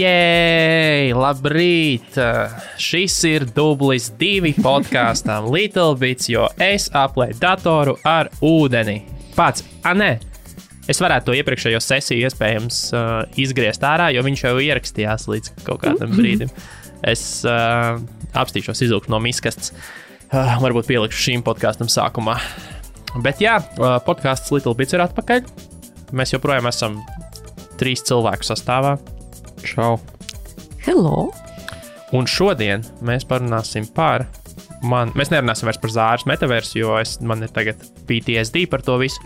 Jēj, labrīt! Šis ir dublis 2 podkāstam Little Bits, jo es aplēju datoru ar ūdeni. Pats, nē, es varētu to iepriekšējo sesiju iespējams izgriezt ārā, jo viņš jau ierakstījās līdz kaut kādam brīdim. Es apstīšos izvilkt no miskastes. Varbūt pielikšu šīm podkāstam sākumā. Bet jā, podkāsts Little Bits ir atpakaļ. Mēs joprojām esam 3 cilvēku sastāvā. Čau. Hello. Un šodien mēs parunāsim par mēs nerunāsim vairs par Zāras metaversu, jo man ir tagad PTSD par to visu.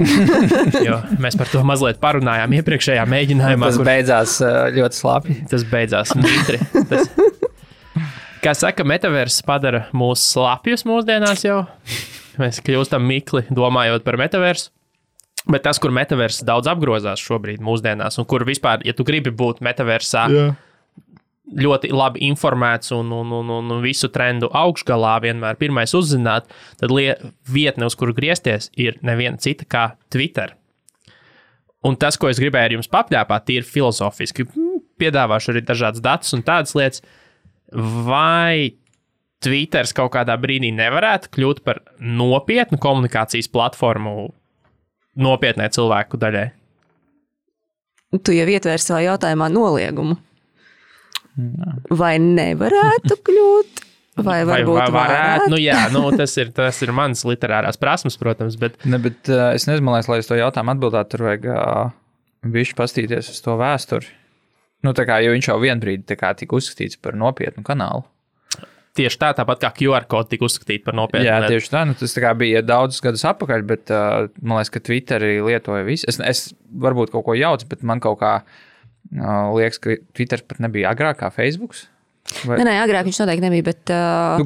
Jo mēs par to mazliet parunājām iepriekšējā mēģinājumā. Tas beidzās ļoti slāpji. Tas beidzās mitri. Kā saka, metaverss padara mūs slapjus mūsdienās jau. Mēs kļūstam mikli domājot par metaversu. Bet tas, kur metaverss daudz apgrozās šobrīd mūsdienās, un kur vispār, ja tu gribi būt metaversā ļoti labi informēts un visu trendu augšgalā vienmēr pirmais uzzināt, tad vietne, uz kuru griezties, ir neviena cita kā Twitter. Un tas, ko es gribēju ar jums papļāpāt, ir filozofiski. Piedāvāšu arī dažādas datus un tādas lietas. Vai Twitters kaut kādā brīdī nevarētu kļūt par nopietnu komunikācijas platformu nopietnē cilvēku daļai? Tu jau ietvēri savā jautājumā noliegumu. Vai nevarētu kļūt? Vai varbūt varētu? Nu jā, tas ir mans literārās prasmes, protams, bet... Bet es nezinu, lai es to jautājumu atbildētu, tur vajag bišķi pastīties uz to vēsturi. Jo viņš jau vienbrīd tika uzskatīts par nopietnu kanālu. Tieši tāpat kā QR kodi tika uzskatīta par nopietnu. Jā, tieši tā. Tas bija daudzus gadus atpakaļ, bet man liekas, ka Twitteri lietoja visu. Es varbūt kaut ko jaucu, bet man kaut kā liekas, ka Twitter pat nebija agrāk kā Facebooks. Vai... Nē, agrāk viņš noteikti nebija, bet...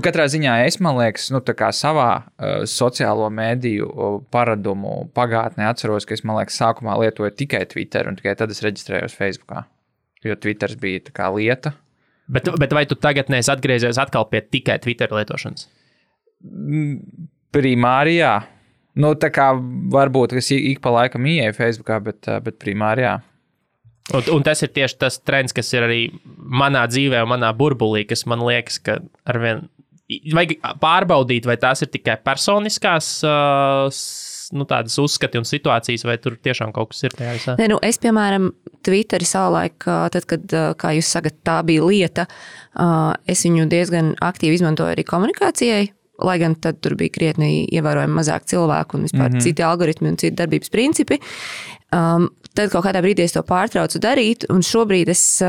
Katrā ziņā man liekas, savā sociālo mēdīju paradumu pagātnē atceros, ka es, man liekas, sākumā lietoju tikai Twitter, un tikai tad es reģistrējos Facebookā. Jo Twitters bija tā kā lieta. Bet vai tu tagad neesi atgriezies atkal pie tikai Twitter lietošanas? Primārijā. Varbūt, ka es ik pa laikam ieeju Facebookā, bet primārijā. Un tas ir tieši tas trends, kas ir arī manā dzīvē un manā burbulī, kas man liekas, ka arvien vajag pārbaudīt, vai tās ir tikai personiskās tādas uzskati un situācijas, vai tur tiešām kaut kas ir tajā visā? Nē, es, piemēram, Twitteri savulaik, tad, kad, kā jūs sakat, tā bija lieta, es viņu diezgan aktīvi izmantoju arī komunikācijai, lai gan tad tur bija krietni ievērojami mazāk cilvēku un vispār citi algoritmi un citi darbības principi. Tad kaut kādā brīdī es to pārtraucu darīt, un šobrīd es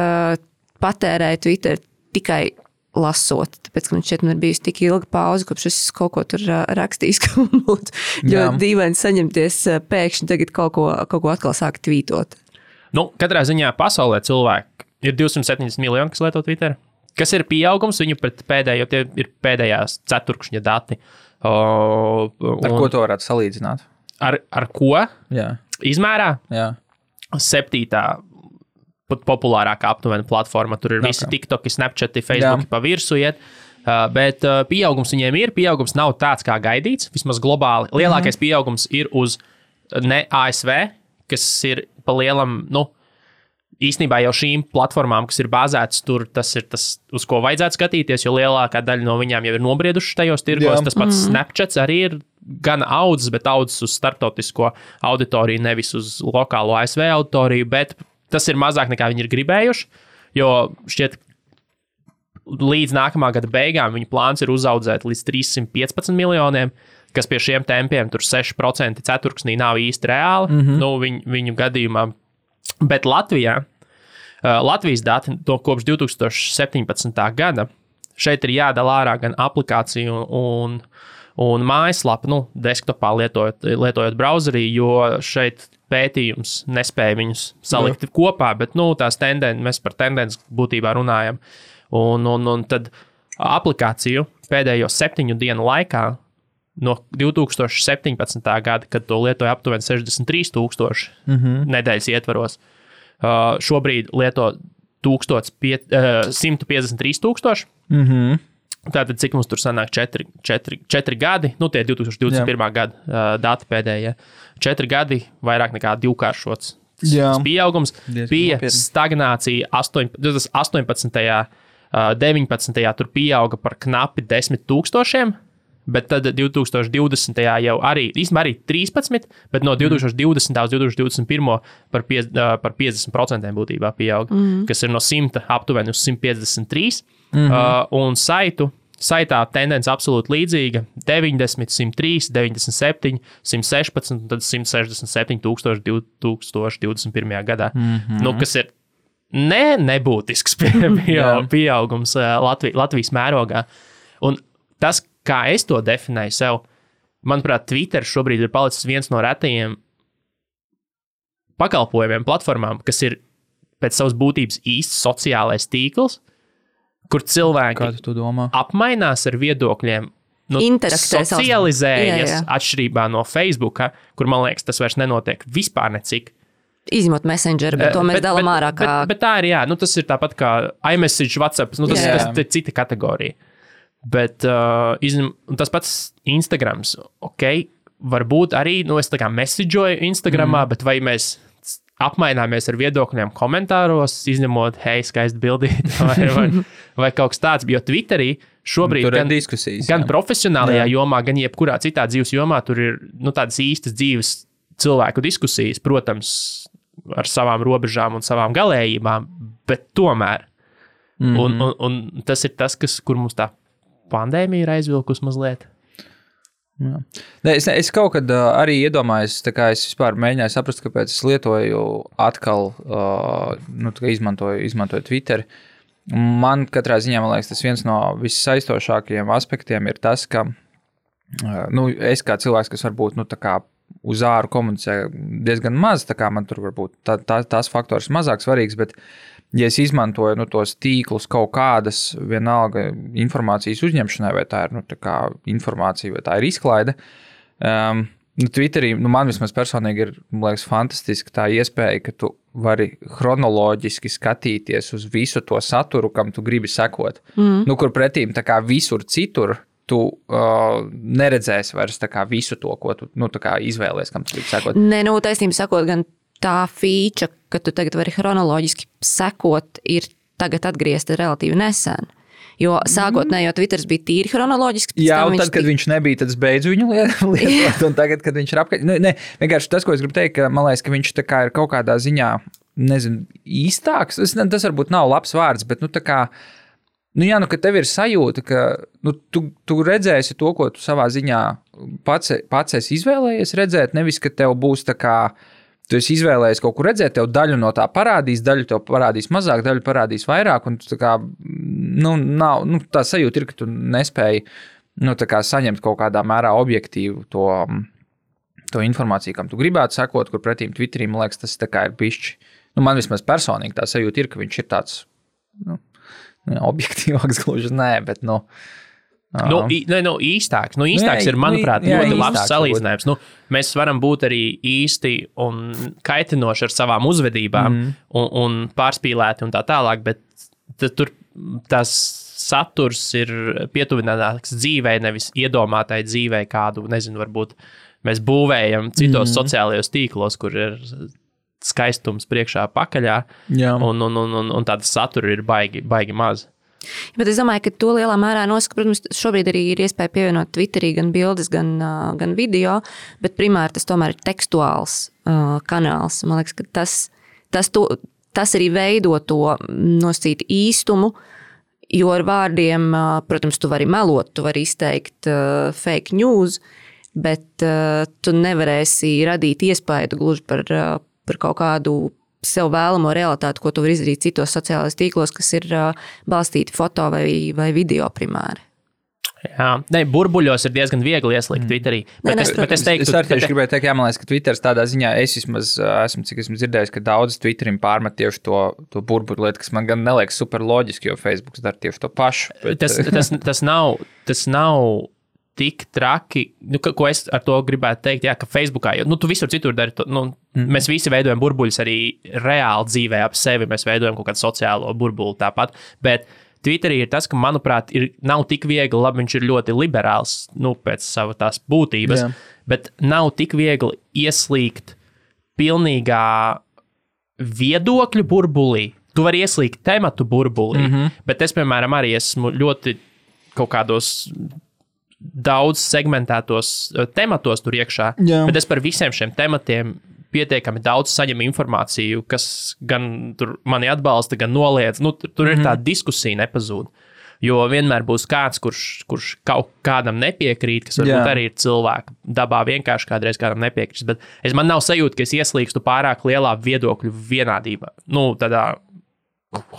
patērēju Twitter tikai lasot, tāpēc, ka man šķiet, man ir bijusi tik ilga pauze, kopš es kaut ko tur rakstījis, ka man būtu ļoti dīvaini saņemties pēkšņi tagad kaut ko atkal sāk tvītot. Katrā ziņā pasaulē cilvēki ir 270 miljoni, kas lieto Twitter. Kas ir pieaugums viņu pret pēdējo, tie ir pēdējās ceturkšņa dati. Ar ko to varētu salīdzināt? Ar ko? Jā. Izmērā? Jā. 7. populārākā aptuvena platforma. Tur ir visi TikToki, Snapchati, Facebooki pa virsu iet. Bet pieaugums viņiem ir. Pieaugums nav tāds, kā gaidīts, vismaz globāli. Lielākais pieaugums ir uz ne ASV, kas ir pa lielam, īstenībā jau šīm platformām, kas ir bāzētas tur, tas ir tas, uz ko vajadzētu skatīties, jo lielākā daļa no viņām jau ir nobrieduši tajos tirgos. Tas pats Snapchats arī ir gan audzis, bet audzis uz starptautisko auditoriju, nevis uz lokālo ASV auditoriju, bet tas ir mazāk nekā viņi ir gribējuši, jo šķiet līdz nākamā gada beigām viņa plāns ir uzaudzēt līdz 315 miljoniem, kas pie šiem tempiem tur 6% ceturksnī nav īsti reāli, viņu gadījumā. Bet Latvijas dati kopš 2017. gada, šeit ir jādala ārā gan aplikāciju un mājaslapu, desktopā lietojot browserī, jo šeit pētījums nespēja viņus salikt kopā, bet tās tendences, mēs par tendences būtībā runājam. Un tad aplikāciju pēdējo 7 dienu laikā no 2017. gada, kad to lietoja aptuveni 63,000 nedēļas ietvaros, šobrīd lieto 153,000. Tātad, cik mums tur sanāk 4 gadi, tie 2021. gada dati pēdējie, 4 gadi vairāk nekā divkāršots tas pieaugums. Bija stagnācija 18. 19. tur pieauga par knapi 10,000, bet tad 2020. jau arī 13, bet no 2020. uz 2021. par 50% būtībā pieauga, kas ir no 100 aptuveni uz 153. Un saitā tendence absolūti līdzīga - 90, 103, 97, 116 un tad 167 tūkstoši 2021. gadā. Kas ir nebūtisks pieaugums Latvijas mērogā. Un tas, kā es to definēju sev, manuprāt, Twitter šobrīd ir palicis viens no retajiem pakalpojumiem, platformām, kas ir pēc savas būtības īsts sociālais tīkls, kur cilvēki apmainās ar viedokļiem, socializējas atšķirībā no Facebooka, kur, man liekas, tas vairs nenotiek vispār necik. Izņemot Messenger, bet to mēs dalām ārā. Bet tā ir, tas ir tāpat kā iMessage, WhatsApp, tas ir cita kategorija. Bet tas pats Instagrams, varbūt arī, es tā kā messageoju Instagramā, bet vai mēs apmaināmies ar viedokļiem komentāros, izņemot, hei, skaisti bildīt, vai kaut kas tāds, jo Twitterī šobrīd gan profesionālajā jomā, gan jebkurā citā dzīves jomā, tur ir tādas īstas dzīves cilvēku diskusijas, protams, ar savām robežām un savām galējībām, bet tomēr. Un tas ir tas, kur mums tā pandēmija ir aizvilkus mazliet. Es kaut kad arī iedomājos, tā kā es vispār mēģināju saprast, kāpēc es lietoju atkal, izmantoju Twitter. Man katrā ziņā, man liekas, tas viens no vissaistošākajiem aspektiem ir tas, ka es kā cilvēks, kas varbūt tā kā uz āru komunicē diezgan maz, tā kā man tur varbūt tās faktors mazāk svarīgs, bet ja es izmantoju tos tīklus kaut kādas vienalga informācijas uzņemšanai, vai tā ir tā kā informācija, vai tā ir izklaide, Twitterī, man vismaz personīgi ir, man liekas, fantastiski tā iespēja, ka tu vari chronoloģiski skatīties uz visu to saturu, kam tu gribi sekot. Kur pretīm tā kā visur citur tu neredzēsi vairs tā kā visu to, ko tu tā kā izvēlies, kam tu gribi sekot. Taisnība sakot, gan tā feature, ka tu tagad vari chronoloģiski sekot, ir tagad atgriezta relatīvi nesen. Jo sākotnējo Twitters bija tīri chronoloģiski. Jā, un tad, kad viņš nebija, tad es beidzu viņu lietot, un tagad, kad viņš ir apkārt. Vienkārši tas, ko es gribu teikt, ka man liekas, ka viņš tā kā ir kaut kādā ziņā, nezinu, īstāks. Tas varbūt nav labs vārds, bet tā kā, ka tev ir sajūta, ka tu redzēsi to, ko tu savā ziņā pats esi izvēlējies redzēt, nevis, ka tev būs tā kā, tu esi izvēlējies kaut kur redzēt, tev daļu no tā parādīs, daļu tev parādīs mazāk, daļu parādīs vairāk, un tā kā, tā sajūta ir, ka tu nespēji, tā kā saņemt kaut kādā mērā objektīvu to informāciju, kam tu gribētu sekot, kur pretīm Twitterī, man liekas, tas tā kā ir bišķi. Man vismaz personīgi tā sajūta ir, ka viņš ir tāds, objektīvāks gluži, bet, īstāks. Īstāks ir, manuprāt, ļoti labs salīdzinājums. Mēs varam būt arī īsti un kaitinoši ar savām uzvedībām un pārspīlēti un tā tālāk, bet tur tas saturs ir pietuvinātāks dzīvei, nevis iedomātai dzīvei kādu, nezinu, varbūt mēs būvējam citos sociālajos tīklos, kur ir skaistums priekšā pakaļā, un tāda satura ir baigi maz. Bet es domāju, ka to lielā mērā nosaka, protams, šobrīd arī ir iespēja pievienot Twitterī gan bildes, gan video, bet primāri tas tomēr ir tekstuāls kanāls. Man liekas, ka tas arī veido to nosacīt īstumu, jo ar vārdiem, protams, tu vari melot, tu vari izteikt fake news, bet tu nevarēsi radīt iespēju gluži par kaut kādu sev vēlamo realitāti, ko tu vari izdarīt citos sociālajos tīklos, kas ir balstīti foto vai video primāri. Jā, burbuļos ir diezgan viegli ieslīgt Twitterī. Bet es teiktu, es arī gribēju teikt, man liekas, ka Twitters tādā ziņā, es vismaz cik esmu dzirdējis, ka daudz Twitterim pārmet tieši to burbuļu lietu, kas man gan neliekas super loģiski, jo Facebooks dara tieši to pašu. Bet... Tas nav tik traki, ko es ar to gribētu teikt, ka Facebookā, jo tu visur citur dari to, mēs visi veidojam burbuļus arī reāli dzīvē ap sevi, mēs veidojam kaut kādu sociālo burbuli tāpat, bet Twitterī ir tas, ka, manuprāt, nav tik viegli, labi, viņš ir ļoti liberāls, pēc sava tās būtības, bet nav tik viegli ieslīgt pilnīgā viedokļu burbulī. Tu vari ieslīgt tematu burbulī, bet es, piemēram, arī esmu ļoti kaut kādos daudz segmentētos tematos tur iekšā, bet es par visiem šiem tematiem pietiekami daudz saņemu informāciju, kas gan tur mani atbalsta, gan noliedz. Nu, tur ir tā diskusija nepazūd. Jo vienmēr būs kāds, kurš kaut kādam nepiekrīt, kas varbūt arī ir cilvēka dabā vienkārši kādreiz kādam nepiekrīt. Bet man nav sajūta, ka es ieslīgstu pārāk lielā viedokļu vienādībā. Nu, tādā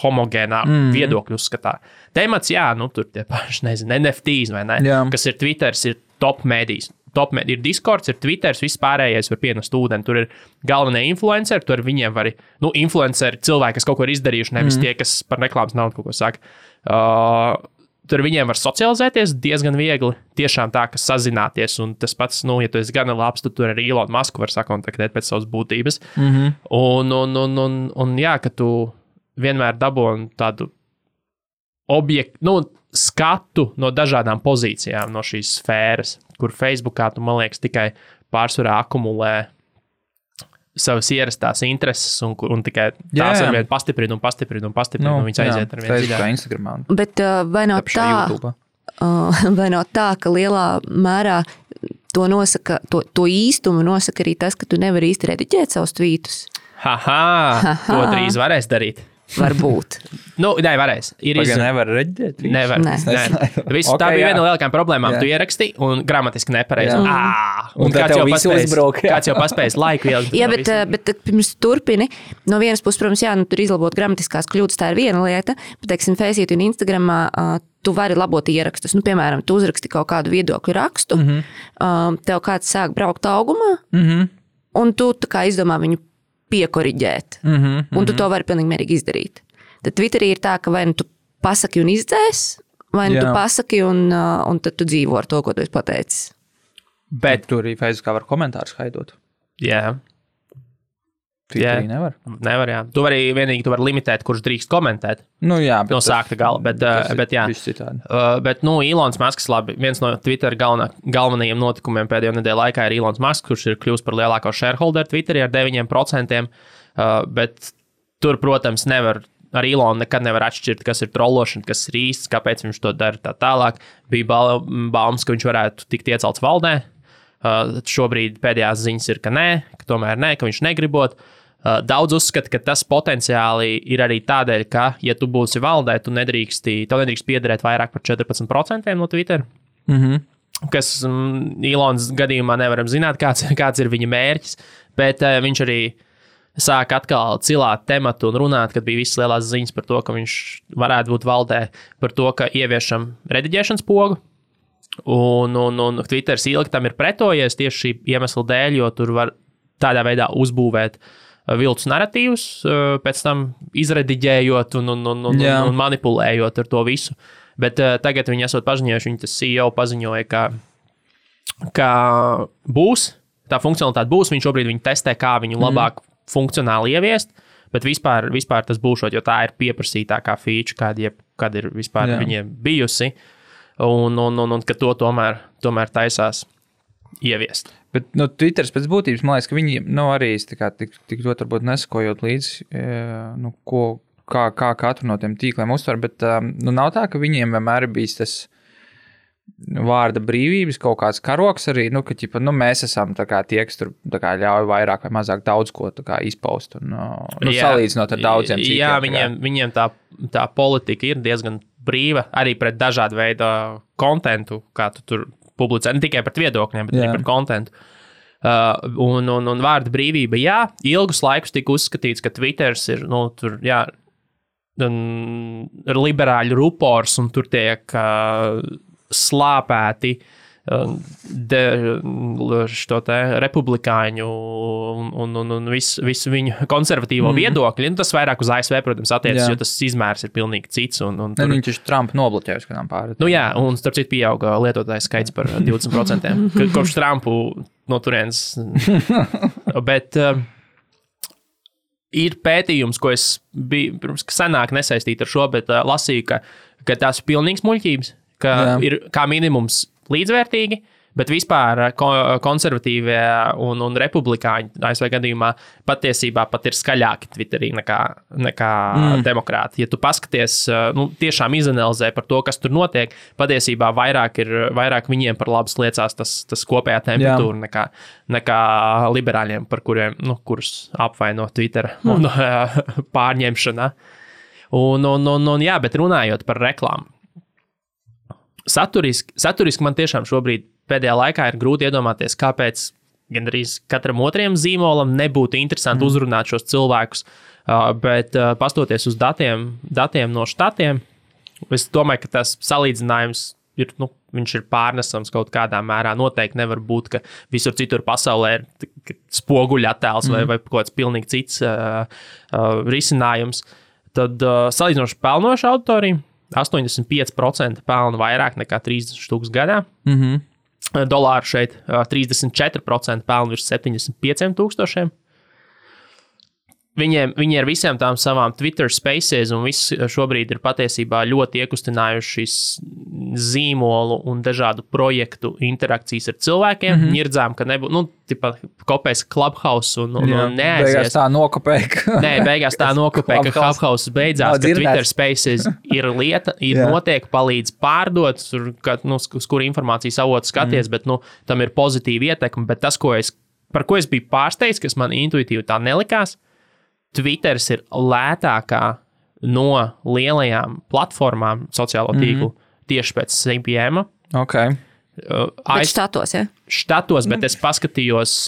homogēnā viedokļu uzskatā. Temats, tur tie paši, NFTs vai ne, kas ir Twitters, ir top mēdījis. Ir Discords, ir Twitters, viss pārējais var pienest ūdeni. Tur ir galvenie influenceri, tur viņiem var, influenceri, cilvēki, kas kaut ko ir izdarījuši, nevis tie, kas par reklāmas naudu kaut ko saka. Tur viņiem var socializēties diezgan viegli, tiešām tā, ka sazināties, un tas pats, ja tu esi gana labs, tad tur arī Elon Musku var sakontaktēt pēc savas būtības. Un jā, ka tu vienmēr dabūji tādu objektu, skatu no dažādām pozīcijām no šīs sfēras, kur Facebookā tu, man liekas, tikai pārsvarā akumulē savas ierastās intereses un tikai tās arvien pastiprina un viņas aiziet ar vienu dziļāk. Instagramā. Bet vai nav tā, ka lielā mērā to nosaka, to īstumu nosaka arī tas, ka tu nevari īsti rediģēt savus tvītus? To drīz varēs darīt. Varbūt. Nē, varēs. Nevar reģēt? Nevar. Tā bija viena no lielākajām problēmām. Tu ieraksti un gramatiski nepareizi. Un kāds jau paspējis laiku ielikt. Jā, bet pirms turpini, no vienas puses, protams, tur izlabot gramatiskās kļūdas, tā ir viena lieta, bet, teiksim, Faceit un Instagramā tu vari labot ierakstus. Piemēram, tu uzraksti kaut kādu viedokļu rakstu, tev kāds sāk braukt augumā, un tu tā kā izdomā viņu piekoriģēt. Un tu to vari pilnīgi mierīgi izdarīt. Tad Twitterī ir tā, ka vai nu tu pasaki un izdzēs, vai nu tu pasaki un tad tu dzīvo ar to, ko tu esi pateicis. Bet tur arī Facebookā var komentārus haidot. Jā. Twitterī nevar? Nevar, jā. Tu vari limitēt, kurš drīkst komentēt. Jā. No sākta gala, bet jā. Bet, Elons Musks, labi, viens no Twitter galvenajiem notikumiem pēdējo nedēļu laikā ir Elons Musks, kurš ir kļūst par lielāko shareholderu Twitterī ar 9%, bet tur, protams, ar Elonu nekad nevar atšķirt, kas ir trollošana, kas ir īsts, kāpēc viņš to dara tā tālāk. Bija baumas, ka viņš varētu tikt iecelts valdē. Šobrīd pēdējās ziņas ir, ka nē, ka tomēr nē, ka viņš negribot. Daudz uzskata, ka tas potenciāli ir arī tādēļ, ka, ja tu būsi valdē, tev nedrīkst piederēt vairāk par 14% no Twitter. Kas Elons gadījumā nevaram zināt, kāds ir viņa mērķis, bet viņš arī sāk atkal cilāt tematu un runāt, kad bija visas lielās ziņas par to, ka viņš varētu būt valdē, par to, ka ieviešam rediģēšanas pogu. Un Twitters ilgi tam ir pretojies tieši šī iemesla dēļ, jo tur var tādā veidā uzbūvēt viltus narratīvus, pēc tam izrediģējot un manipulējot ar to visu. Bet tagad viņi esot paziņojuši, viņa tas CEO paziņoja, ka būs, tā funkcionalitāte būs, viņš šobrīd viņu testē, kā viņu labāk funkcionāli ieviest, bet vispār tas būšot, jo tā ir pieprasītākā feature, kāda ir vispār viņiem bijusi, un ka to tomēr taisās ieviest. Bet Twitters pēc būtības, man liekas, ka viņi arī tik ļoti varbūt nesakojot līdzi, kā katru no tiem tīkliem uztver, bet nav tā, ka viņiem vienmēr ir bijis tas vārda brīvības kaut kāds karoks arī, ka mēs esam tie, kas tur ļauj vairāk vai mazāk daudz ko izpaust un salīdzinot ar daudziem citiem. Jā, viņiem tā politika ir diezgan brīva arī pret dažādu veidu kontentu, kā tu tur publicē, ne tikai par viedokļiem, bet arī par kontentu. Un vārda brīvība, ilgus laikus tika uzskatīts, ka Twitters ir, tur, liberāļu rupors, un tur tiek slāpēti republikāņu un visu viņu konservatīvo viedokļi. Tas vairāk uz ASV, protams, attiecas, jo tas izmērs ir pilnīgi cits. Viņš ir Trumpa nobloķējis kādām pāri. Un starp citu pieauga lietotāju skaits par 20%. Kopš Trumpu no turienes. Bet ir pētījums, ko es biju pirms senāk nesaistīti ar šo, bet lasīju, ka tās ir pilnīgs muļķības, ka ir kā minimums līdzvērtīgi, Bet vispār konservatīvie un republikāņi ASV gadījumā patiesībā pat ir skaļāki Twitterī nekā demokrāti. Ja tu paskaties, tiešām izanalizē par to, kas tur notiek, patiesībā vairāk viņiem par labas liecās tas kopējā temperatūra nekā liberāļiem, par kurus apvaino Twitter un pārņemšanā. Jā, bet runājot par reklāmu. Saturiski man tiešām šobrīd pēdējā laikā ir grūti iedomāties, kāpēc gandrīz katram otriem zīmolam nebūtu interesanti uzrunāt šos cilvēkus, bet pastoties uz datiem no štatiem, es domāju, ka tas salīdzinājums ir, viņš ir pārnesams kaut kādā mērā. Noteikti nevar būt, ka visur citur pasaulē ir spoguļa attēls vai kaut kāds pilnīgi cits risinājums. Tad salīdzinoši pelnoša auditorija, 85% pelna vairāk nekā 30,000 gadā. Dolāru šeit 34% pelna virs 75,000. Viņi ar visiem tām savām Twitter spaces un viss šobrīd ir patiesībā ļoti iekustinājuši zīmolu un dažādu projektu interakcijas ar cilvēkiem. Ņirdzām, ka kopēs Clubhouse un neaizies. Beigās tā nokopēja. Beigās tā nokopēja, ka Clubhouse beidzās, ka Twitter spaces ir lieta, notiek, palīdz pārdot, uz kuru informācijas avotu skaties, bet tam ir pozitīva ietekme. Bet tas, par ko es biju pārsteigts, kas man intuitīvi tā nelikās, Twitters ir lētākā no lielajām platformām sociālo tīklu tieši pēc CPM. Okay. Bet štatos, ja? Štatos, bet es paskatījos,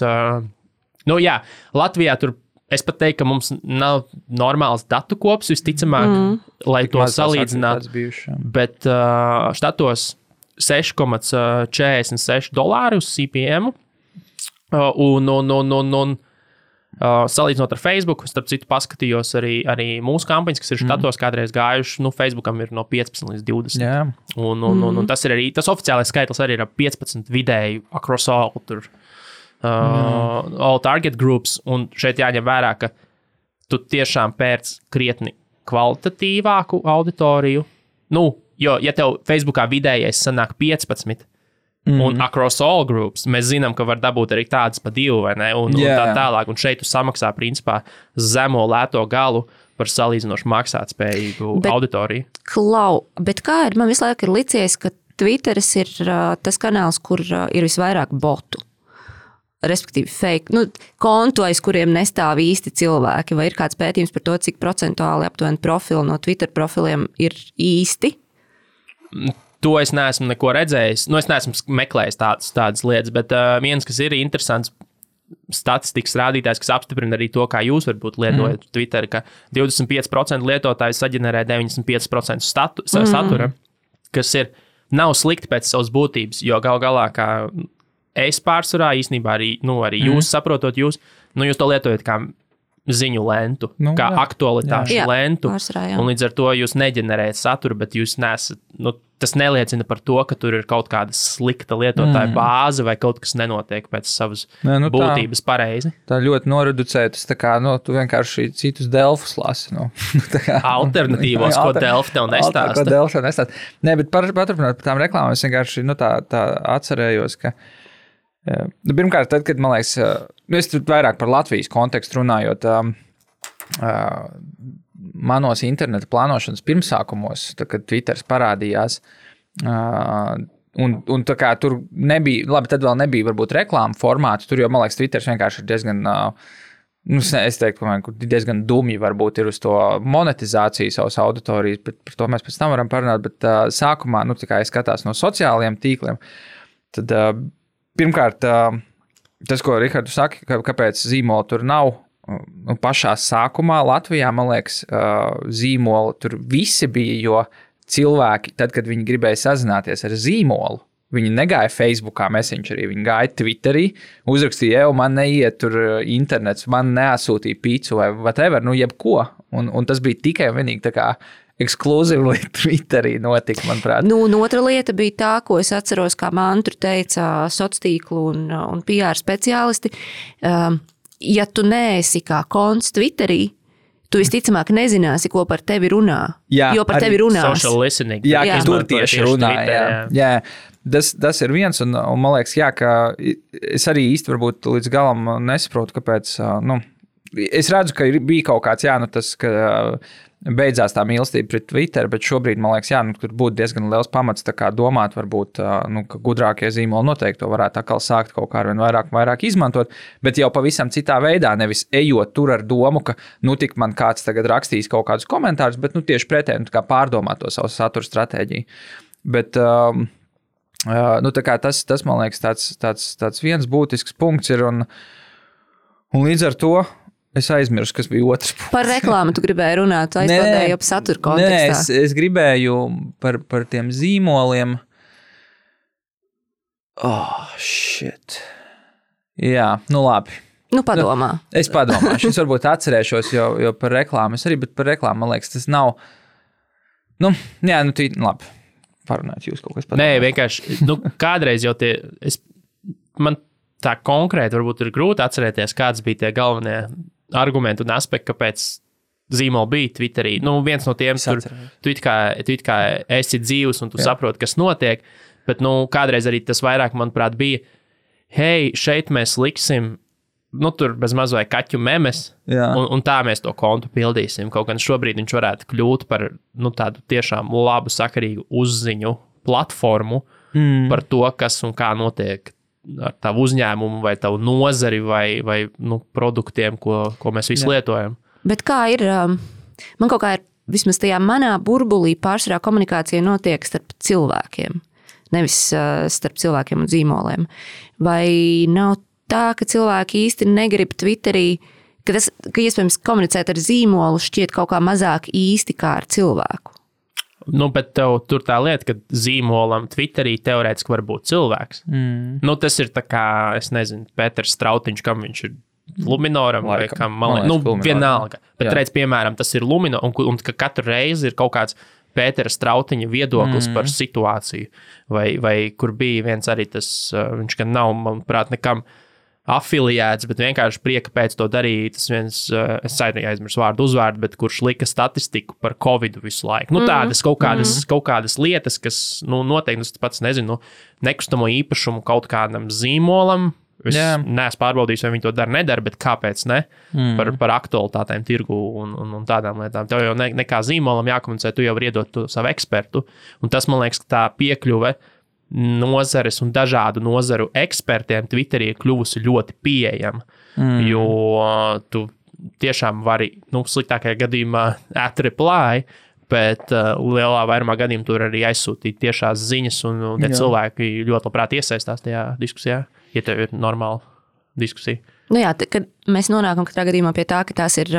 Latvijā tur, es pat teiktu, ka mums nav normāls datu kops, visticamāk, lai to salīdzinātu. Bet štatos $6,46 uz CPM. Salīdzinot ar Facebook, starp citu paskatījos arī mūsu kampaņas, kas ir štatos kādreiz gājuši, Facebookam ir no 15 līdz 20. Yeah. Un tas ir arī, tas oficiālais skaitlis arī ir 15 vidēji across all, all target groups, un šeit jāņem vērā, ka tu tiešām pērc krietni kvalitatīvāku auditoriju. Jo, ja tev Facebookā vidējais sanāk 15, un across all groups, mēs zinām, ka var dabūt arī tādas pa 2, vai ne? Un tā tālāk. Un šeit tu samaksā, principā, zemo lēto galu par salīdzinoši maksātspējīgu auditoriju. Bet kā ir? Man visu laiku ir licies, ka Twitteris ir tas kanāls, kur ir visvairāk botu. Respektīvi fake, kontu, aiz kuriem nestāv īsti cilvēki. Vai ir kāds pētījums par to, cik procentuāli aptuveni profili no Twitter profiliem ir īsti? To es neesmu neko redzējis. Es neesmu meklējis tādas lietas, bet viens, kas ir interesants statistikas rādītājs, kas apstiprina arī to, kā jūs varbūt lietojat Twitter, ka 25% lietotāji saģenerē 95% satura, kas nav slikti pēc savas būtības, jo gal galā, kā es pārsvarā īstenībā arī jūs saprotot, jūs to lietojat kā ziņu lentu, kā aktualitāšu lentu, un līdz ar to jūs neģenerējat saturu, bet jūs nesat, tas neliecina par to, ka tur ir kaut kāda slikta lietotāja bāze vai kaut kas nenotiek pēc savas būtības pareizi. Tā ļoti noreducētas, tā kā, tu vienkārši citus Delfus lasi, Alternatīvos, ko Delfi tev nestāsta. Ko Delfi tev nestāsta. Nē, bet paturpināt par tām reklāmām, es vienkārši, tā atcerējos, ka pirmkārt, tad, kad, man liekas, es tur vairāk par Latvijas kontekstu runājot, manos interneta plānošanas pirmsākumos, tad, kad Twitters parādījās, un tā kā tur nebija, labi, tad vēl nebija varbūt reklāma formāti, tur jau, man liekas, Twitters vienkārši ir diezgan, es teiktu, ka diezgan dumji varbūt ir uz to monetizāciju savas auditorijas, bet par to mēs pēc tam varam parunāt, bet sākumā, tā kā es skatās no sociālajiem tīkliem, tad pirmkārt, tas, ko Rihardu saka, kāpēc zīmola tur nav, pašā sākumā Latvijā, man liekas, zīmola tur visi bija, jo cilvēki, tad, kad viņi gribēja sazināties ar zīmolu, viņi negāja Facebookā Messengerī, viņi gāja Twitterī, uzrakstīja, man neiet tur internets, man neasūtīja pīcu vai whatever, jebko, un tas bija tikai un vienīgi tā kā ekskluzīvi Twitterī notika, manuprāt. Un otra lieta bija tā, ko es atceros, kā mantru teica sociātīklu un PR speciālisti. Ja tu neesi kā konts Twitterī, tu visticamāk nezināsi, ko par tevi runā. Jo par tevi runās. Social listening. Jā, tur tieši runā. Jā. Tas ir viens, un man liekas, jā, ka es arī īsti varbūt līdz galam nesaprotu, kāpēc, es redzu, ka bija kaut kāds, tas, ka beidzās tā mīlestība pret Twitter, bet šobrīd, man liekas, tur būtu diezgan liels pamats tā kā domāt, varbūt, ka gudrākie zīmoli noteikti to varētu atkal sākt kaut kā ar vien vairāk izmantot, bet jau pavisam citā veidā, nevis ejot tur ar domu, ka, tik man kāds tagad rakstīs kaut kādus komentārus, bet, tieši pretēji, tā kā pārdomāt to savu satura stratēģiju. Bet, tā kā tas, man liekas, tāds viens būtisks punkts ir, un līdz ar to es aizmirsu, kas bija otrs punkts. Par reklāmu tu gribēji runāt, aizpildēji jau satura kontekstā. Nē, es gribēju par tiem zīmoliem. Shit. Jā, labi. Padomā. Es padomāšu. Es varbūt atcerēšos, jo par reklāmu es arī, bet par reklāmu, man liekas, tas nav. Labi. Parunāt jūs kaut kas padomāt. Nē, vienkārši, kādreiz jau man tā konkrēti varbūt ir grūti atcerēties, kāds bija tie galvenie argumenti un aspekti, kāpēc zīmoli bija Twitterī. Viens no tiem tur, tu it kā esi dzīvs un tu saproti, kas notiek, bet, kādreiz arī tas vairāk, manuprāt, bija, hei, šeit mēs liksim, tur bez maz vai kaķu memes, un tā mēs to kontu pildīsim. Kaut gan šobrīd viņš varētu kļūt par, tādu tiešām labu, sakarīgu uzziņu platformu par to, kas un kā notiek ar tavu uzņēmumu vai tavu nozari vai produktiem, ko mēs visi lietojam. Bet kā ir, man kaut kā ir, vismaz tajā manā burbulī pārsvarā komunikācija notiek starp cilvēkiem, nevis starp cilvēkiem un zīmoliem. Vai nav tā, ka cilvēki īsti negrib Twitterī, ka iespējams komunicēt ar zīmolu šķiet kaut kā mazāk īsti kā ar cilvēku? Bet tev tur tā lieta, ka zīmolam Twitterī teorētiski var būt cilvēks. Tas ir tā kā, es nezinu, Pēters Strautiņš, kam viņš ir Luminoram vai kam, vienalga. Bet redz, piemēram, tas ir Lumino, un ka katru reizi ir kaut kāds Pētera Strautiņa viedoklis par situāciju. Vai kur bija viens arī tas, viņš gan nav, manuprāt, nekam afiliēts, bet vienkārši prieka pēc to darīja. Tas viens, es aizmirsu vārdu uzvārdu, bet kurš lika statistiku par Covidu visu laiku. Tādas kaut kādas lietas, kas, noteikti, es pats nezinu, nekustamo īpašumu kaut kādam zīmolam. Es neesmu pārbaudījis, vai viņi to nedara, bet kāpēc ne? Par aktualitātēm tirgu un tādām lietām. Tev jau nekā zīmolam jākomunicē, tu jau vari iedot to savu ekspertu. Un tas, man liekas, tā piekļuve nozares un dažādu nozaru ekspertiem Twitterī ir kļuvusi ļoti pieejama, jo tu tiešām vari, sliktākajā gadījumā reply, bet lielā vairumā gadījumā tur arī aizsūtīt tiešās ziņas, un tie cilvēki ļoti labprāt iesaistās tajā diskusijā, ja tev ir normāla diskusija. Kad mēs nonākam katrā gadījumā pie tā, ka tās ir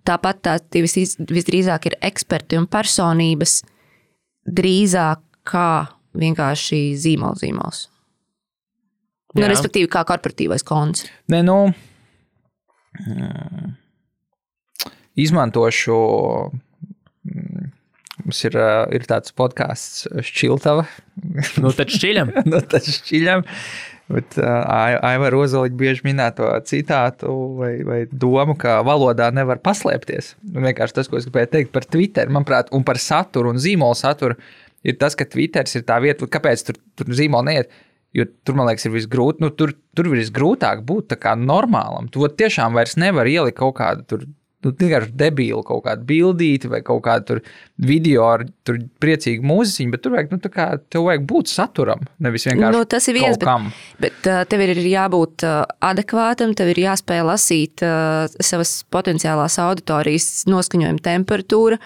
tāpat visdrīzāk ir eksperti un personības drīzāk kā vienkārši zīmols. Respektīvi, kā korporatīvais konts. Izmantošu, mums ir tāds podcasts Šķiltava. Tad šķiļam. Bet Aivar Ozoliņš bieži minēto citātu vai domu, ka valodā nevar paslēpties. Vienkārši tas, ko es gribēju teikt par Twitter, manuprāt, un par saturu un zīmolu saturu, ir tas, ka Twitters ir tā vieta, kāpēc tur zīmoli neiet, jo tur, man liekas, ir visgrūt, tur visgrūtāk būt tā kā normālam. Tu tiešām vairs nevar ielikt kaut kādu tur, vienkārši debīlu kaut kādu bildīti vai kaut kādu tur video ar tur priecīgu mūziķiņu, bet tur vajag, tev vajag būt saturam, nevis vienkārši tas ir viens, kaut kam. Bet tev ir jābūt adekvātam, tev ir jāspēj lasīt savas potenciālās auditorijas noskaņojuma temperatūra,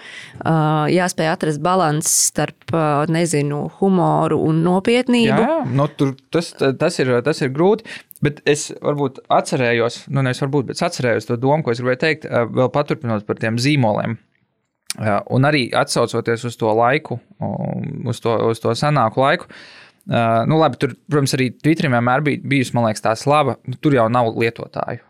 jāspēj atrast balans starp, humoru un nopietnību. Jā, tas ir grūti. Bet es varbūt atcerējos, bet atcerējos to domu, ko es gribēju teikt, vēl paturpinot par tiem zīmoliem. Un arī atsaucoties uz to laiku, uz to senāku laiku. Labi, tur, protams, arī Twitterim vienmēr bijusi, man liekas, tā slava, tur jau nav lietotāju.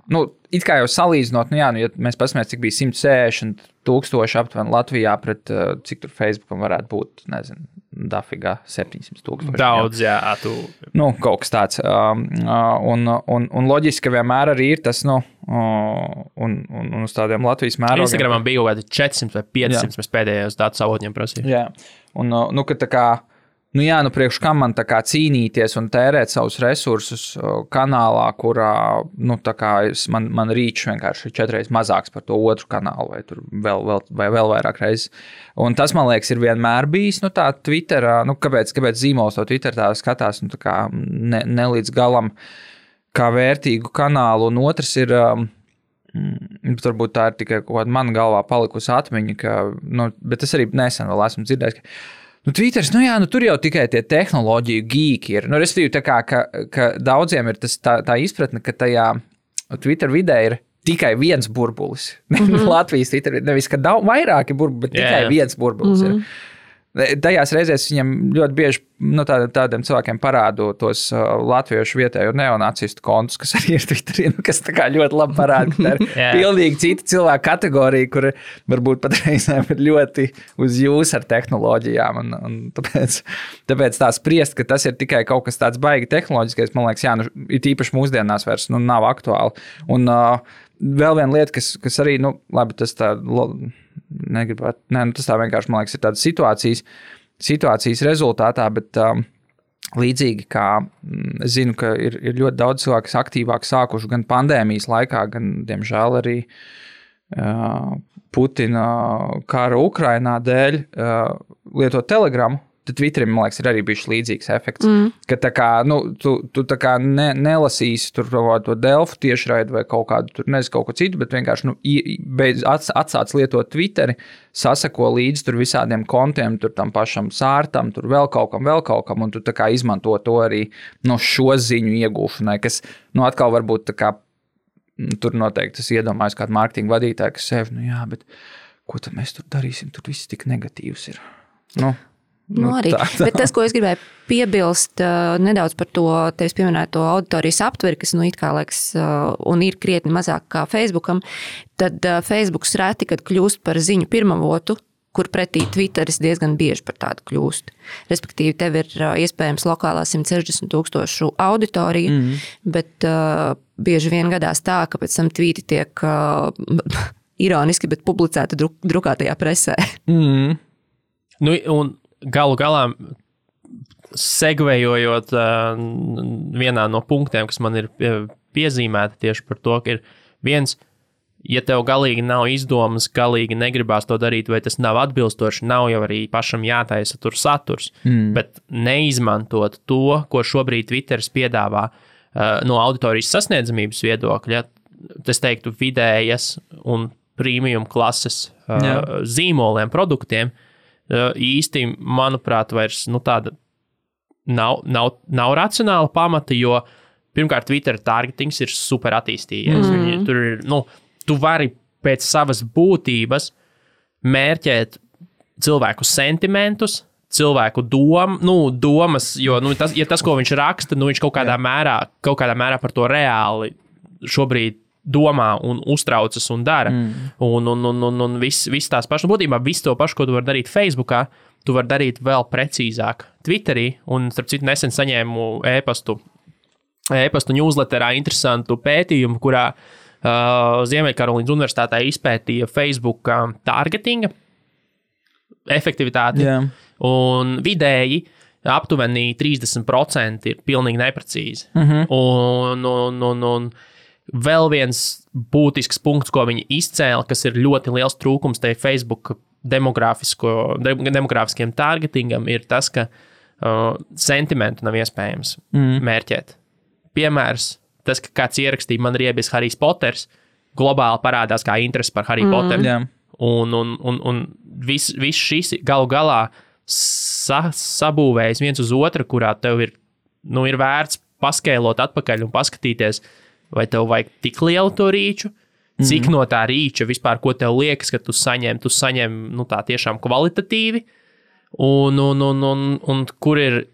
It kā jau salīdzinot, ja mēs paskatāmies, cik bija 160,000 aptuveni Latvijā pret, cik tur Facebookam varētu būt, dafigā 700,000. Daudz, jā. Kaut kas tāds. Un loģiski, ka vienmēr arī ir tas, un uz tādiem Latvijas mērogiem. Instagramam bija kaut kādi 400 vai 500, mēs pēdējos datu savotņiem prasījām. Jā, un, ka tā kā, priekš kam man tā kā cīnīties un tērēt savus resursus kanālā, kurā, tā kā man rīčs vienkārši ir 4 reizes mazāks par to otru kanālu, vai tur vēl vairāk reizes. Un tas, man liekas, ir vienmēr bijis, tā Twitterā, kāpēc zīmols to Twitter tā skatās, tā kā ne līdz galam kā vērtīgu kanālu, un otrs ir, varbūt tā ir tikai kaut kāda man galvā palikusi atmiņa, bet es arī nesen vēl esmu dzirdējis, ka Twitters, tur jau tikai tie tehnoloģiju geeki ir. Respektīvi, tā kā, ka daudziem ir tā izpratne, ka tajā Twitter vidē ir tikai viens burbulis. Latvijas Twitter, nevis, ka vairāki burbuli, bet tikai viens burbulis ir. Tajās reizēs viņam ļoti bieži tādiem cilvēkiem parādu tos latviešu vietējo neonacistu kontus, kas arī ir Twitterī, kas tā kā ļoti labi parāda, ka tā ir pilnīgi cita cilvēka kategorija, kur varbūt pat reizēm ir ļoti uz jūs ar tehnoloģijām. Un tāpēc tā spriest, ka tas ir tikai kaut kas tāds baigi tehnoloģiskais, man liekas, ir īpaši mūsdienās vairs nav aktuāli. Un vēl viena lieta, kas arī, labi, tas tā... tas tā vienkārši, man liekas, ir tādas situācijas rezultātā, bet līdzīgi kā es zinu, ka ir ļoti daudz cilvēku, kas aktīvāk sākuši gan pandēmijas laikā, gan, diemžēl, arī Putina kara Ukrainā dēļ lietot Telegramu, tad Twitterim, man liekas, ir arī bijis līdzīgs efekts. Ka tā kā, tu tā kā nelasīsi tur to Delfu tiešraidi vai kaut kādu, tur nezinu, kaut ko citu, bet vienkārši atsāc lietot Twitteri, sasako līdzi tur visādiem kontiem, tur tam pašam sārtam, tur vēl kaut kam, un tu tā kā izmanto to arī šo ziņu iegūšanai, kas, atkal varbūt tā kā, tur noteikti es iedomājos kādu mārketinga vadītāju, kas sev, bet ko tad mēs tur darīsim, tur viss tik negatīvs ir. Arī. Bet tas, ko es gribēju piebilst nedaudz par to tevis pieminēto auditorijas aptveri, kas it kā liekas un ir krietni mazāk kā Facebookam, tad Facebooks reti, kad kļūst par ziņu pirmavotu, kur pretī Twitteris diezgan bieži par tādu kļūst. Respektīvi, tev ir iespējams lokālā 160,000 auditorija, bet bieži vien gadās tā, ka pēc tam tvīti tiek ironiski, bet publicēti drukātajā presē. Un galu galā, segvējot vienā no punktiem, kas man ir piezīmēta tieši par to, ka ir viens, ja tev galīgi nav izdomas, galīgi negribās to darīt, vai tas nav atbilstoši, nav jau arī pašam jātaisa tur saturs, bet neizmantot to, ko šobrīd Twitteris piedāvā no auditorijas sasniedzamības viedokļa, es teiktu vidējas un premium klases zīmoliem, produktiem, īsti, manuprāt, vairs tāda nav racionāla pamata, jo pirmkārt Twitter targetings ir super attīstījies. Tur ir, tu vari pēc savas būtības mērķēt cilvēku sentimentus, cilvēku domas, jo tas, ko viņš raksta, viņš kaut kādā mērā par to reāli šobrīd domā un uztraucas un dara. Un viss tās pašas būtībā, viss to pašu, ko tu vari darīt Facebookā, tu vari darīt vēl precīzāk Twitterī. Un, starp citu, nesen saņēmu e-pastu newsletterā interesantu pētījumu, kurā Ziemeļkarolīnas universitātē izpētīja Facebook targetinga efektivitāti. Un vidēji aptuveni 30% ir pilnīgi neprecīzi. Un vēl viens būtisks punkts, ko viņi izcēla, kas ir ļoti liels trūkums tai Facebook demogrāfiskiem targetingam, ir tas, ka sentimentu nav iespējams mērķēt. Piemērs, tas, ka kāds ierakstīja, man riebies Harijs Poters, globāli parādās kā interesi par Hariju Poteru. Un viss šis galu galā sabūvējas viens uz otru, kurā tev ir vērts paskēlot atpakaļ un paskatīties, vai tev vajag tik lielu to rīču, cik no tā rīča vispār, ko tev liekas, ka tu saņem tā tiešām kvalitatīvi, un kur ir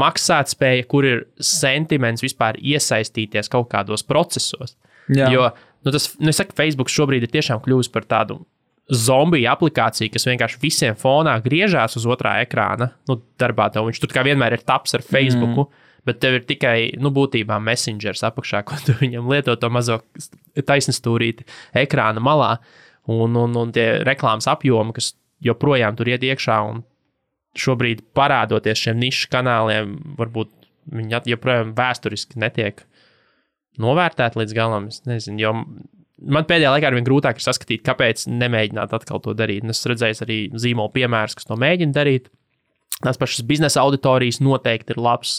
maksātspēja, kur ir sentiments vispār iesaistīties kaut kādos procesos. Jo, es saku, Facebook šobrīd ir tiešām kļuvis par tādu zombiju aplikāciju, kas vienkārši visiem fonā griežās uz otrā ekrāna. Darbā tev viņš tur kā vienmēr ir taps ar Facebooku, bet tev ir tikai, būtībā messengers apakšā, ko tu viņam lieto to mazo taisnstūrīti ekrāna malā, un tie reklāmas apjomi, kas joprojām tur iet iekšā, un šobrīd parādoties šiem nišu kanāliem, varbūt viņi joprojām vēsturiski netiek novērtēti līdz galam. Es nezinu, jo man pēdējā laikā arvien grūtāk ir saskatīt, kāpēc nemēģināt atkal to darīt. Un es redzēju arī zīmolu piemērus, kas to mēģina darīt. Tās pašas biznesa auditorijas noteikti ir labs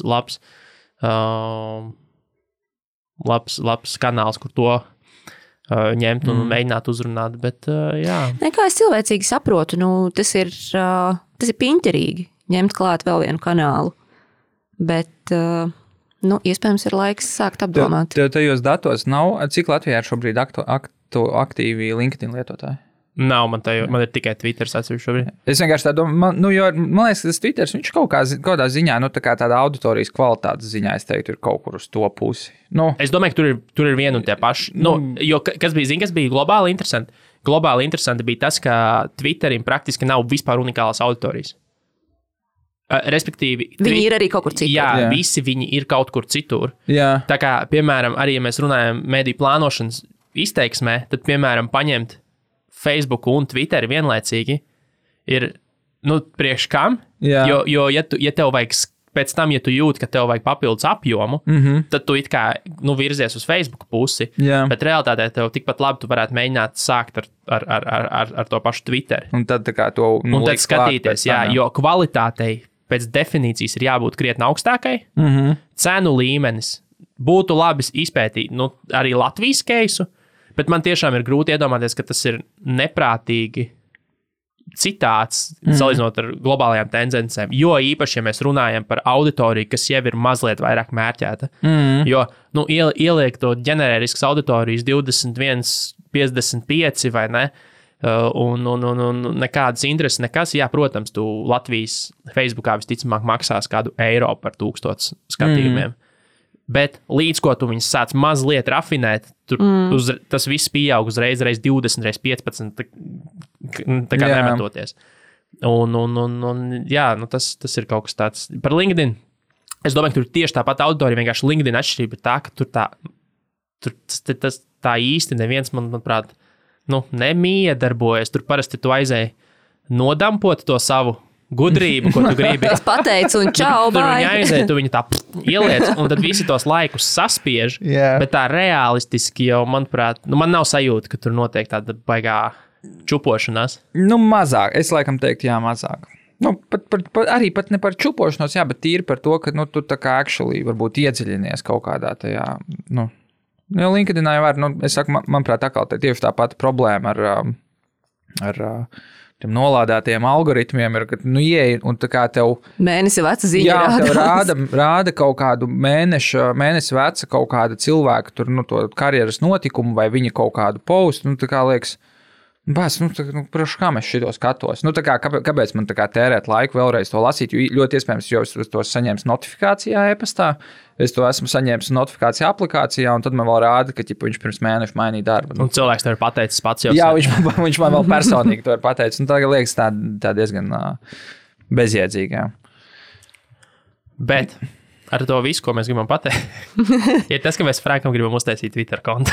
kanāls, kur to ņemt un mēģināt uzrunāt, bet jā. Kā es cilvēcīgi saprotu, tas ir piņķerīgi ņemt klāt vēl vienu kanālu, bet iespējams ir laiks sākt apdomāt. Tev tajos datos nav, cik Latvijā ir šobrīd aktīvi LinkedIn lietotāji? Nav, man ir tikai Twitter atsevišķi šobrīd. Es vienkārši tā domāju, jo man liekas, ka tas Twitter, viņš kaut kādā ziņā, tāda auditorijas kvalitātes ziņā, es teiktu, ir kaut kur uz to pusi. Es domāju, ka tur ir viena un tie paši. Jo kas bija globāli interesanti? Globāli interesanti bija tas, ka Twitterim praktiski nav vispār unikālas auditorijas. Respektīvi, viņi ir arī kaut kur citur. Jā, visi viņi ir kaut kur citur. Jā. Tā kā, piemēram, arī ja mēs runājam mediju plānošanas izteiksmē, tad, piemēram, paņemt Facebook un Twitteri vienlaicīgi ir, priekš kam? Jo ja tev vajag, pēc tam, ja tu jūti, ka tev vajag papildus apjomu, tad tu it kā, virzies uz Facebook pusi, bet realitātē tev tikpat labi tu varētu mēģināt sākt ar to pašu Twitteri. Un tad tā kā to un tad skatīties, jo kvalitātei pēc definīcijas ir jābūt krietni augstākai, cenu līmenis būtu labi izpētīt, arī Latvijas keisu, bet man tiešām ir grūti iedomāties, ka tas ir neprātīgi citāts, salīdzinot ar globālajām tendencēm. Jo īpaši, ja mēs runājam par auditoriju, kas jau ir mazliet vairāk mērķēta. Jo ieliek to ģeneriskas auditorijas 21, 55 vai ne, un nekādas intereses, nekas. Jā, protams, tu Latvijas Facebookā visticamāk maksās kādu eiro par 1000 skatījumiem. Bet līdz ko tu viņus sāc mazliet rafinēt, tas viss pieaug uzreiz 20, 15, tā kā nemetoties. Jā, tas ir kaut kas tāds. Par LinkedIn, es domāju, ka tur tieši tāpat auditorija, vienkārši LinkedIn atšķirība ir tā, ka tur tā īsti neviens, manuprāt, nemiedarbojas. Tur parasti tu aizēji nodampot to savu gudrību, ko tu gribi. Es pateicu un čau, bye. Tur viņa aiziet, tu viņu tā ieliec, un tad visi tos laikus saspiež, bet tā realistiski jau, manuprāt, man nav sajūta, ka tur notiek tāda baigā čupošanās. Mazāk. Es laikam teiktu, mazāk. Arī pat ne par čupošanos, bet tīri par to, ka tu tā kā actually varbūt iedziļinies kaut kādā tajā, jo LinkedInā jau var, es saku, manuprāt, tieši tā pati problēma ar tiem nolādētajiem algoritmiem ir, ka, ieej, un tā kā tev mēnesi veca ziņa rāda kaut kādu mēnesi veca kaut kāda cilvēka, tur, to karjeras notikumu vai viņa kaut kādu postu, tā kā liekas, prašu, kā mēs šito skatos? Tā kā, kāpēc man tā kā tērēt laiku vēlreiz to lasīt, jo ļoti iespējams, jo es to saņēmu notifikācijā e-pastā, es to esmu saņēmis notifikācijā aplikācijā, un tad man vēl rāda, ka viņš pirms mēneša mainīja darbu. Un cilvēks to ir pateicis pats jau. Jā, viņš man vēl personīgi to ir pateicis, un tā liekas tā diezgan bezjēdzīgā. Bet ar to visu, ko mēs gribam pateikt, ir tas, ka mēs Frankam gribam uztaisīt Twitter kontu.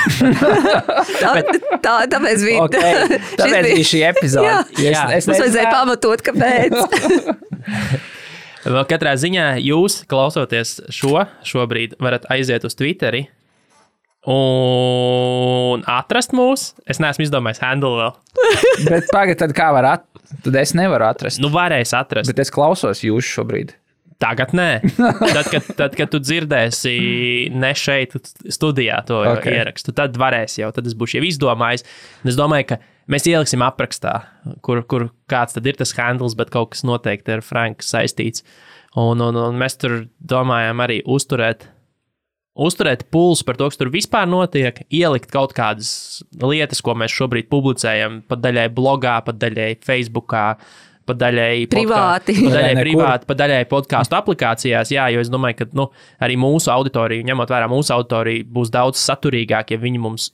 Tāpēc bija šī epizode. Es vajadzēja pamatot, kāpēc. Vēl katrā ziņā jūs, klausoties šobrīd, varat aiziet uz Twitteri un atrast mūs. Es neesmu izdomājis handle vēl. Bet pagad, tad kā var atrast? Tad es nevaru atrast. Varēs atrast. Bet es klausos jūs šobrīd. Tagad nē. Tad, kad tu dzirdēsi ne šeit studijā to ierakstu, tad varēsi jau, tad es būšu jau izdomājis. Un es domāju, ka mēs ieliksim aprakstā, kur kāds tad ir tas handles, bet kaut kas noteikti ar Franku saistīts. Un mēs tur domājam arī uzturēt pulsu par to, kas tur vispār notiek, ielikt kaut kādas lietas, ko mēs šobrīd publicējam, pat daļai blogā, pat daļai Facebookā, pat daļai privāti, pat daļai podcastu aplikācijās. Jā, jo es domāju, ka arī mūsu auditorija, ņemot vērā mūsu auditoriju, būs daudz saturīgāk, ja viņi mums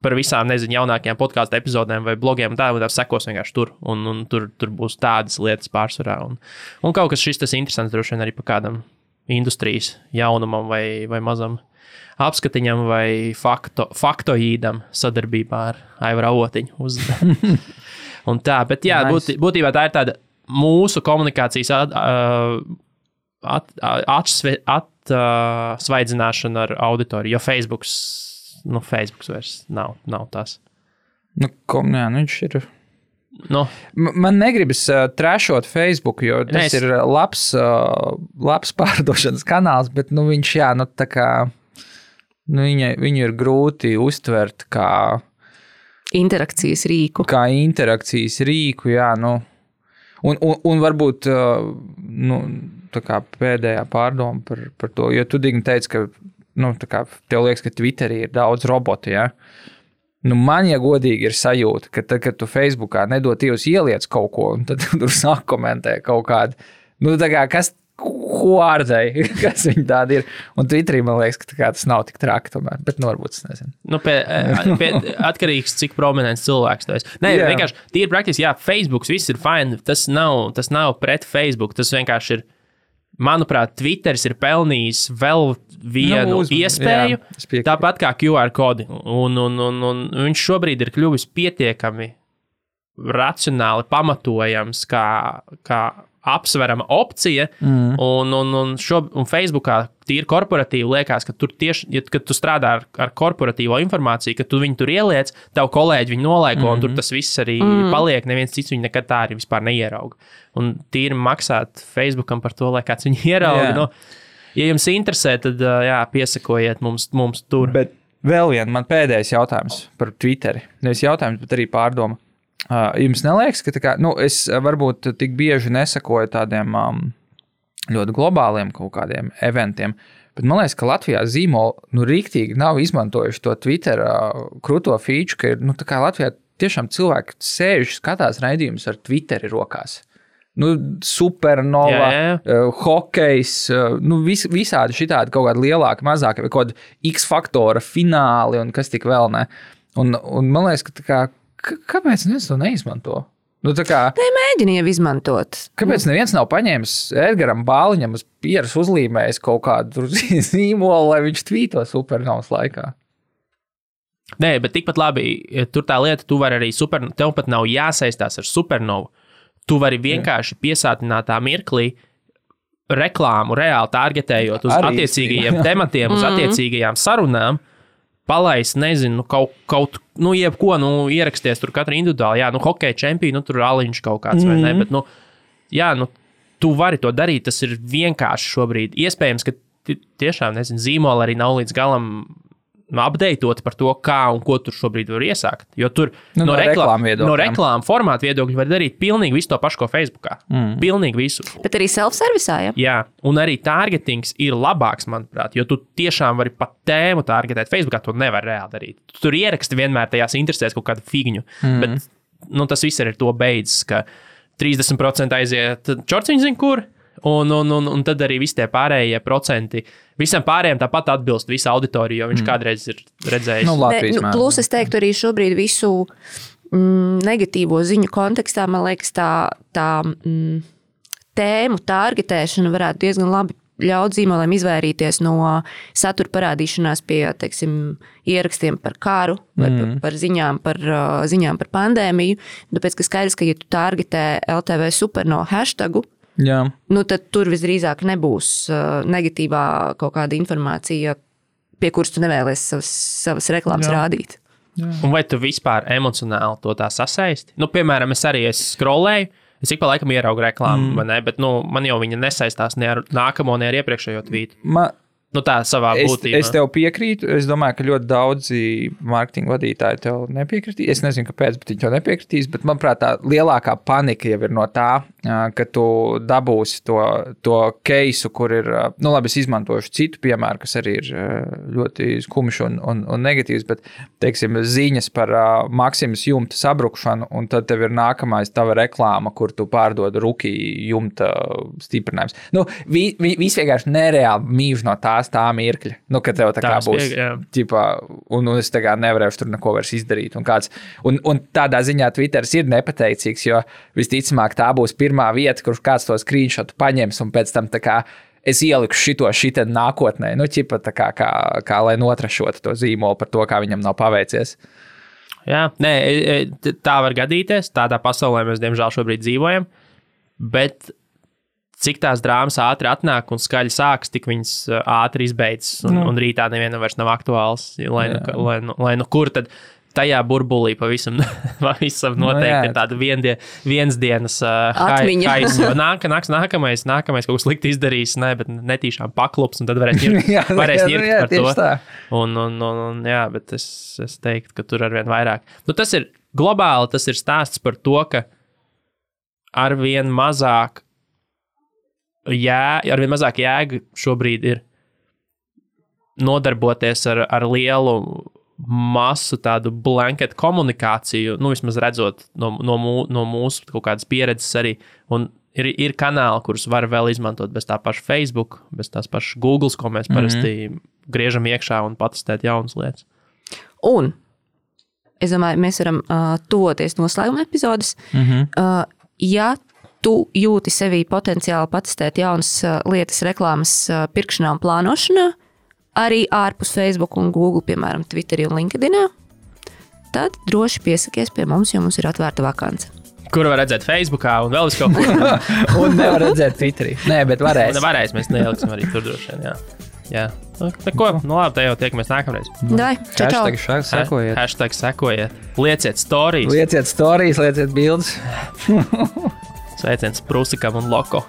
par visām, jaunākajām podcastu epizodēm vai blogiem tā sekos vienkārši tur. Un tur būs tādas lietas pārsvarā. Un kaut kas šis tas interesants droši vien arī par kādam industrijas jaunumam vai mazam apskatiņam vai faktoīdam sadarbībā ar Aivaru Avotiņu. Un tā, bet jā, būtībā tā ir tāda mūsu komunikācijas atsvaidzināšana ar auditoriju, jo Facebooks vairs nav tas. Viņš ir... Man negribas trešot Facebook, jo tas ir labs pārdošanas kanāls, bet viņš, tā kā, viņu ir grūti uztvert kā interakcijas rīku. Un varbūt tā kā pēdējā pārdoma par to, jo tu Digni teici, ka tā kā tev liekas, ka Twitterī ir daudz robotu, man, ja godīgi ir sajūta, ka tad, kad tu Facebookā nedod Dievs ieliec kaut ko, un tad tur sāk komentē kaut kādu, tā kā, ko ārdēji, kas viņi tādi ir. Un Twitterī man liekas, ka tas nav tik traki tomēr, bet varbūt es nezinu. Atkarīgs, cik prominents cilvēks tu esi. Nē, vienkārši tīri praktiski, Facebooks viss ir fine, tas nav pret Facebook, tas vienkārši ir, manuprāt, Twitteris ir pelnījis vēl vienu iespēju, tāpat kā QR kodi. Un viņš šobrīd ir kļuvis pietiekami racionāli pamatojams kā apsverama opcija, un Facebookā tīri korporatīvi liekas, ka tur tieši, kad tu strādā ar korporatīvo informāciju, ka tu viņu tur ieliec, tavu kolēģi viņu nolaiko, un tur tas viss arī paliek, neviens cits viņu nekad tā arī vispār neierauga. Un tīri maksāt Facebookam par to, lai kāds viņu ierauga. Ja jums interesē, tad piesakojiet mums tur. Bet vēl man pēdējais jautājums par Twitteri. Nevis jautājums, bet arī pārdoma. Jums neliekas, ka es varbūt tik bieži nesakoju tādiem ļoti globāliem kaut kādiem eventiem, bet man liekas, ka Latvijā zīmoli riktīgi nav izmantojuši to Twitter krūto feature, ka ir, tā kā Latvijā tiešām cilvēki sēž, skatās raidījumus ar Twitteri rokās. Supernova, hokejs, visādi šitādi kaut kādi lielāki, mazāki, vai kaut kādi X-faktora fināli un kas tik vēl ne. Un man liekas, ka tā kā kāpēc neviens to neizmanto? Mēģini jau izmantot. Kāpēc neviens nav paņēmis Edgaram Bāliņam uz pieras uzlīmējis kaut kādu zīmolu, lai viņš tvīto supernovas laikā? Nē, bet tikpat labi, tur tā lieta, tu vari arī tev pat nav jāsaistās ar supernovu. Tu vari vienkārši piesātinātā mirklī reklāmu reāli targetējot uz attiecīgajiem tematiem, uz attiecīgajām sarunām, palaist, nezinu, kaut jebko, ieraksties tur katra individuāli, hokeja čempionu, tur Aliņš kaut kāds vai ne, bet, tu vari to darīt, tas ir vienkārši šobrīd. Iespējams, ka tiešām, nezinu, zīmola arī nav līdz galam updateot par to, kā un ko tur šobrīd var iesākt, jo tur no reklāmu formātu viedokļu var darīt pilnīgi visu to pašu, ko Facebookā. Pilnīgi visu. Bet arī self-servisā, Jā, un arī targetings ir labāks, manuprāt, jo tu tiešām vari pat tēmu targetēt. Facebookā to nevar reāli darīt. Tu tur ieraksti vienmēr tajās interesēs kaut kādu figņu, bet tas viss ir ar to beidzas, ka 30% aiziet čorciņu zin kur, un tad arī visi tie pārējie procenti, visam pārējiem tāpat atbilst visa auditorija, jo viņš kādreiz ir redzējis. Plus es teiktu arī šobrīd visu negatīvo ziņu kontekstā, man liekas, tā tēmu targetēšana varētu diezgan labi ļaut zīmoliem izvairīties no satura parādīšanās pie, teiksim, ierakstiem par karu vai par ziņām par pandēmiju, tāpēc, ka skaidrs, ka ja tu targetē LTV Supernova hashtagu, tad tur visdrīzāk nebūs negatīvā kaut kāda informācija, pie kuras tu nevēlies savas reklāmas rādīt. Un vai tu vispār emocionāli to tā sasaisti? Piemēram, es scrollēju, es ik pa laikam ieraugu reklāmu, vai ne, bet man jau viņa nesaistās ne ar nākamo, ne ar iepriekšējo tvītu. Tā savā būtībā. Es tev piekrītu. Es domāju, ka ļoti daudzi mārketinga vadītāji tev nepiekritīs. Es nezinu, kāpēc, bet viņi tev nepiekritīs. Bet, manuprāt, tā lielākā panika jau ir no tā, ka tu dabūsi to keisu, kur ir, labi, es izmantošu citu piemēru, kas arī ir ļoti skumjš un negatīvs, bet, teiksim, ziņas par Maksimas jumta sabrukšanu, un tad tev ir nākamais tava reklāma, kur tu pārdod Ruki jumta stiprinājums. Viss vienkārši nereāli mīž no tā mirkļa, kad tev tā kā būs, un es tā kā nevarēšu tur neko vairs izdarīt. Un tādā ziņā Twitteris ir nepateicīgs, jo visticamāk tā būs pirmā vieta, kur kāds to screenshotu paņems, un pēc tam tā kā es ieliku šitā nākotnē, tā kā lai notrašotu to zīmolu par to, kā viņam nav paveicies. Jā, tā var gadīties, tādā pasaulē mēs diemžēl šobrīd dzīvojam. Bet cik tās drāmas ātri atnāk un skaļi sākas, tik viņas ātri izbeidzas, un rītā nevienam vairs nav aktuāls. Lai nu kur tad tajā burbulī pavisam noteikti ir tāda viensdienas haisa. Nākamais kaut ko slikti izdarīs, bet netīšām paklups, un tad varēs ņirkt par to. Jā, bet es teiktu, ka tur arvien vairāk. Tas ir globāli, tas ir stāsts par to, ka arvien mazāk jēga šobrīd ir nodarboties ar lielu masu tādu blanket komunikāciju, vismaz redzot no mūsu kaut kādas pieredzes arī, un ir kanāli, kurus var vēl izmantot bez tā paša Facebook, bez tās pašas Googles, ko mēs parasti griežam iekšā un patestēt jaunas lietas. Un, es domāju, mēs varam tuvoties noslēguma epizodes. Ja tu jūti sevī potenciāli patestēt jaunas lietas reklāmas pirkšanā un plānošanā, arī ārpus Facebook un Google, piemēram, Twitterī un LinkedInā, tad droši piesakies pie mums, jo mums ir atvērta vakance. Kur var redzēt Facebookā un vēl visu kaut ko? Un nevar redzēt Twitterī. Nē, bet varēs. Varēs, mēs neieliksim arī tur droši vien, jā. Neko, labi, te jau tiekamies nākamreiz. Dai, čau. Hashtag sekojiet. Lieciet stories. Lieciet bildes. Sveiciens Prusikam un Loko.